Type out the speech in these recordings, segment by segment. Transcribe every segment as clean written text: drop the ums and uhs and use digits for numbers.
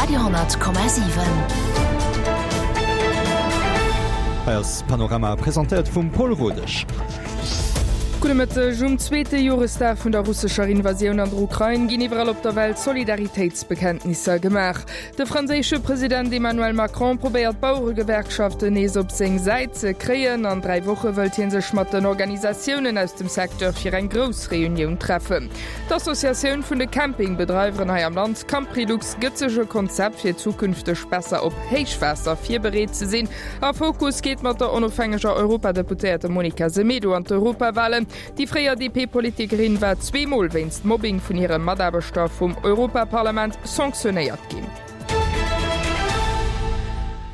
Radio,7. Hei ass Panorama, presentéiert vum Paul Rodesch. Gudde Mëtteg. Um zweete Joresdag vun der russescher Invasioun an der Ukrain ginn iwwerall op der Welt Solidaritéitsbekenntnisser gemaach. De franséische President Emmanuel Macron probéiert d'Baueregewerkschaften nees op seng Säit ze kréien. An 3 Woche wëllt hie sech mat den Organisatiounen aus dem Secteur fir eng grouss Reunioun treffen. D'Associatioun vun de Campingbedreiweren hei am Land, Camprilux, gëtt sech e Konzept fir zukünfteg besser op Héichwaasser virbereet ze sinn. A Fokus geet mat der onofhängeger Europadeputéierter Monica Semedo an d'Europawalen. Déi fréier DP-Politikerin war zweemol wéinst Mobbing vun hire Mataarbechter vum Europaparlament sanctionéiert ginn.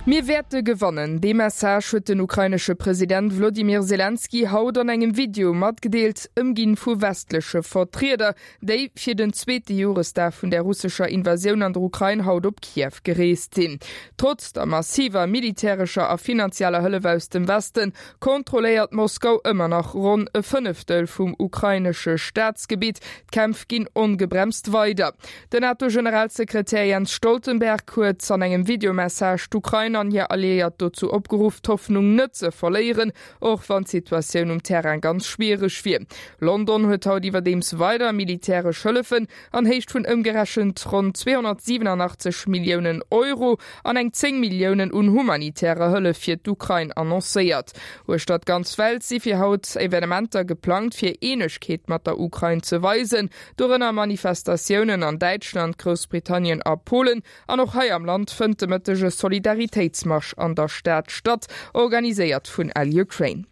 Mir wäerte gewannen. Dee Message huet den ukrainesche President Wlodimir Selenskyj haut an engem Video matgedeelt, ëmginn vu westleche Vertrieder, déi fir den zweete Joresdag vun der russescher Invasioun an der Ukrain haut op Kiew gereest sinn. Trotz der massiver militärescher a finanzieller Hëllef aus dem Westen, kontrolléiert Moskau ëmmer nach ronn e Fënneftel vum ukrainesche Staatsgebitt. D'Kämpf ginn ongebremst weider. Den NATO-Generalsekretär Jens Stoltenberg huet an engem Videomessage d'Ukrain an hir Alliéiert dozou opgeruff, d'Hoffnung net ze verléieren, och wann d'Situatioun um Terrain ganz schwiereg wier. London huet haut iwwerdeems weider militäresch Hëllefen an Héicht vun ëmgerechent ronn 287 Milliounen Euro an eng 10 Milliounen un humanitärer Hëllef fir d'Ukrain annoncéiert. Uechter d'ganz Welt si fir haut Evenementer geplangt, fir Eenegkeet mat der Ukrain ze weisen, dorënner Manifestatiounen an Däitschland, Groussbritannien a Polen. An och hei am Land fënnt de Mëtteg e Solidaritéitsmarsch an der Stad statt, organiséiert vun LUkraine.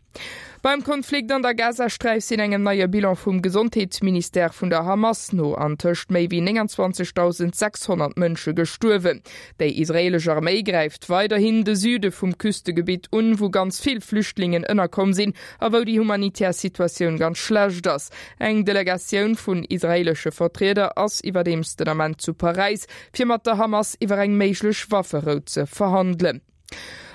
Beim Konflikt an der Gazasträif sinn engem neie Bilan vum Gesondheetsministère vun der Hamas no antëscht méi wéi 29.600 Mënsche gestuerwen. Déi israeelesch Arméi gräift weiderhin de Süde vum Küstegebitt un, wou ganz vill Flüchtlingen ënnerkomm sinn a wou déi humanitär Situatioun ganz schlecht ass. Eng Delegatioun vun israeelesche Vertrieder ass iwwerdeems den Ament zu Paräis, fir mat der Hamas iwwer eng méiglech Wafferou ze verhandelen.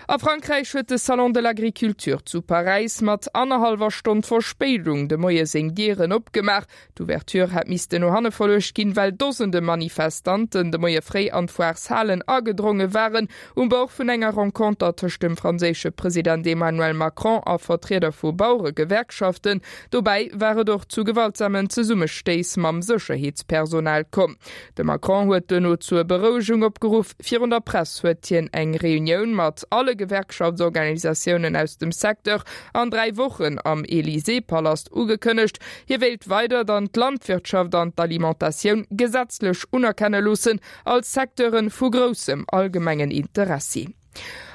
A Frankräich huet de Salon de l'Agriculture zu Paräis mat annerhallwer Stonn Verspéidung de Moie seng Dieren opgemaach. D'Ouverture hätt missten no hanne verluecht ginn, well Dosende Manifestanten de Moie fréi an d'Foireshalen agedronge waren. Um Bord vun enger Renconter tëscht dem franséische President Emmanuel Macron a Vertrieder vu Baueregewerkschaften. Dobäi war et och zu gewaltsamen Zesummestéiss mam Sécherheetspersonal komm. De Macron huet duerno zur Berouegung opgeruff. Virun der Press huet hien eng Reunioun mat alle Gewerkschaftsorganisatiounen aus dem Secteur an 3 Wochen am Élysée-Palast ugekënnegt. Hie wéilt weider dann d'Landwirtschaft an d'Alimentatioun gesetzlech unerkenne loossen als Secteure vu groussem allgemengen Interessi.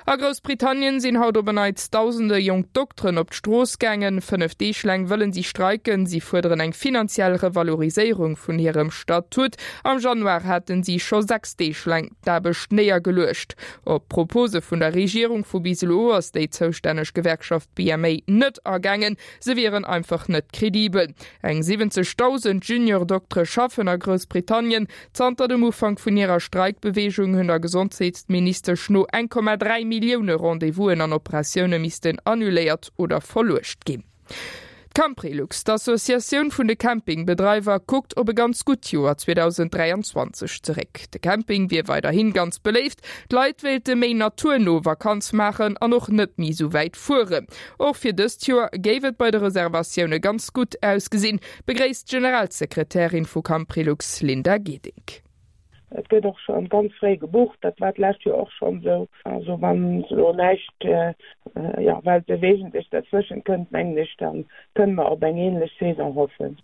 A Groussbritannien sinn haut op en Neits dausende jonk Dokteren op d'Strooss gaangen. 5 Deeg laang wëllen si streiken. Si fuerderen eng finanziell Revaloriséierung vun hirem Statut. Am Januar haten si scho 6 Deeg laang d'Aarbecht néiergeluecht. Op d'Propose vun der Regierung vu bis elo ass déi zoustänneg Gewerkschaft BMA net agaangen. Se wieren einfach net kredibel. Eng 70.000 Junior-Doktere schaffen a Groussbritannien. Zanter dem Ufank vun hirer Streikbeweegung hunn der Gesondheetsministesch no 1,3 Millioune Rendez-vousen an Operatioune missten annuléiert oder verluecht ginn. D'Camprilux, d'Associatioun vun de Campingbedreiwer, kuckt op e ganz gutt Joer 2023 zeréck. De Camping wier weiderhi ganz beléift, d'Leit wéilte méi naturno Vakanz maachen an och net méi esou wäit fueren. Och fir dëst Joer géif et bei de Reservatioune ganz gutt ausgesinn, begréisst d'Generalsekretärin vu Camprilux Linda Gedink. Et gëtt och scho ganz fréi gebucht, dat war d'lescht Joer och schonn esou. Also wann elo näischt, jo, Weltbewegendes derzwëschent kënnt, mengen ech, da kënne mer op eng änlech Saison hoffen.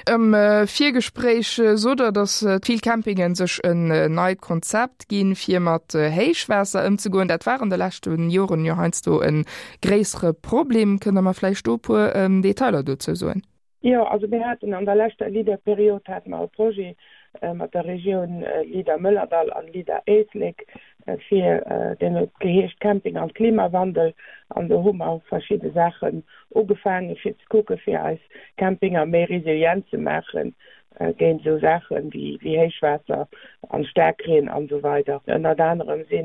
Am Virgespréich sot Der, datt vill Campingen sech en neit Konzept ginn, fir mat Héichwaasser ëmzegoen. Dat war an de leschte Joren jo heiansdo e gréissere Problem. Kënnt Der mer vläicht do e puer Detailer dozou soen? Jo, also mir haten an der leschter LEADER-Period hate mer e Projet mat der Regioun LEADER Mëllerdall an LEADER Éislek fir, deen huet geheescht Camping an Klimawandel an do hu mer verschidde Saachen ugefaange fir ze kucke fir eis Campinger méi resilient ze maachen géint esou Saache wéi Héichwaasser an Staarkreen an esou weider. Ënnert anerem si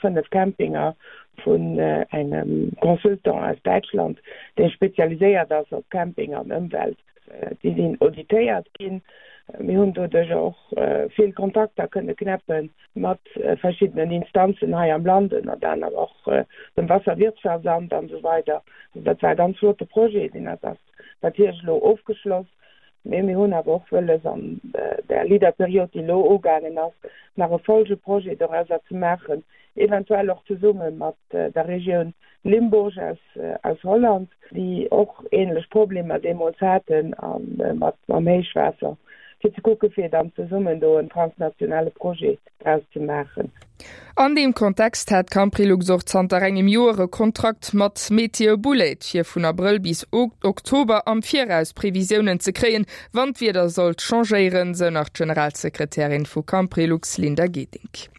5 Campinger vun engem Consultant aus Däitschland, dee spezialiséiert ass op Camping an Ëmwelt. Déi sinn auditéiert ginn. Mir hunn doduercher och vill Kontakter kënne knäppe mat verschiddenen Instanzen hei am Land, ënnert anerem och dem Wasserwirtschaftsamt an esou weider. Also dat war e ganz flotte Projet, deen ass natierlech elo ofgeschloss. Mee mir hunn awer och wëlles, an där Leader-Period, déi elo ugaangen ass, nach e Folgeprojet dorauser ze maachen, eventuell och zesumme mat der Regioun Limburg aus Holland, déi och ähnlech Problemer deemools haten mat mam Héichwaasser, fir ze kucke fir dann zesummen do en transnationale Projet draus ze maachen. An deem Kontext hat Camprilux och zanter engem Joer e Kontrakt mat Meteobullet, fir vun Abrëll bis Oktober am Viraus Previsiounen ze kréien, wann d'Wieder sollt changéieren, sou nach d'Generalsekretärin vu Camprilux Linda Gedink.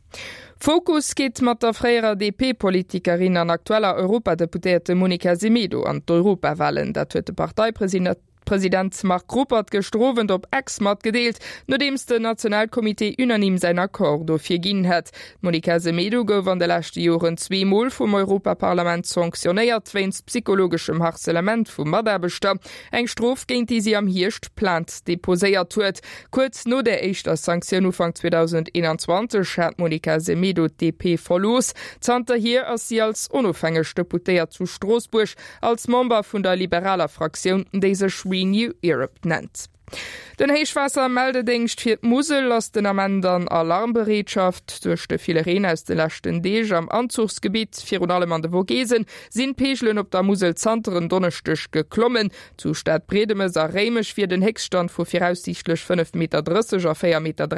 Fokus geet mat der fréierer DP-Politikerin an aktueller Europadeputéierte Monica Semedo an d'Europawalen. Dat huet de Parteipresident President Marc Ruppert gëschter Owend op X matgedeelt, nodeems den Nationalcomité unanime säin Accord dofir ginn hätt. D'Monica Semedo gouf an de leschte Joren zweemol vum Europaparlament sanktionéiert wéinst psychologeschem Harcelement vu Mataarbechter. Eng Strof, géint déi si am Hierscht Plainte deposéiert huet. Kuerz no der éischter Sanktioun Ufank 2021 hat d'Monica Semedo d'DP verlooss. Zanterhier ass si als onofhängeg Deputéiert zu Stroossbuerg Als Member vun der liberaler Fraktioun, déi sech Renew Europe nennt. Den Héichwaassermeldedéngscht fir d'Musel ass den Ament an Alarmbereetschaft. Duerch de ville Reen aus de leschten Deeg am Anzuchsgebitt, virun allem an de Vogesen, sinn d'Peegelen op der Musel zanter en Donneschdeg geklommen. Zu Stadbriedemes a Réimech wier den Héchststand vu viraussiichtlech 5,30 Meter a 4,43 Meter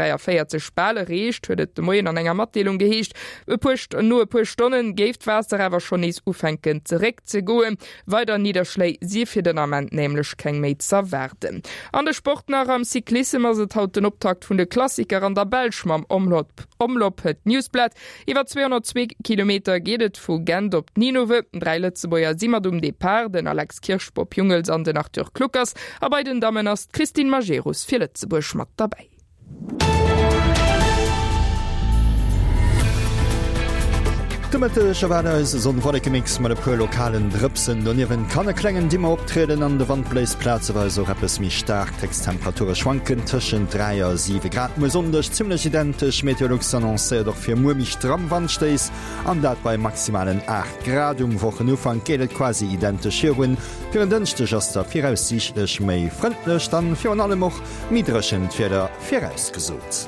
bal erreecht, huet et de Moien an enger Matdeelung geheescht. E puer No e puer Stonne géif d'Waasser awer schonn nees ufänken zeréckzegoen. Weider Nidderschléi si fir den Ament nämlech keng méi z'erwaarden. An de Sport nach, Am Cyclissem ass et haut den Optakt vun de Klassiker an der Belsch mam Omloop Omloop Het Nieuwsblad. Iwwer 202 Kilometer geet et vu Gent op Ninove. 3 Lëtzebuerger si mat um Depart, den Alex Kirsch, Bob Jungels an den Arthur Kluckers. A bei den Dammen ass d'Christine Majerus fir Lëtzebuerg mat derbäi. De Mëtteg erwaart eis e Sonn-Wolleke-Mix mat e puer lokalen Drëpsen. Doniewent kann e klengen Dimmer optrieden an de Wand bléist plazeweis och eppes méi staark. D'Héchsttemperature schwanken tëschent 3 a 7 Grad. Muer Sonndeg zimmlech identesch. Meteolux annoncéiert och fir muer méi stramm Wandstéiss an dat bei maximalen 8 Grad. Um Wochenufank geet et quasi identesch virun. Fir en Dënschdeg ass da viraussiichtlech méi frëndlecht an virun allem och Méi dréchent Wieder virausgesot.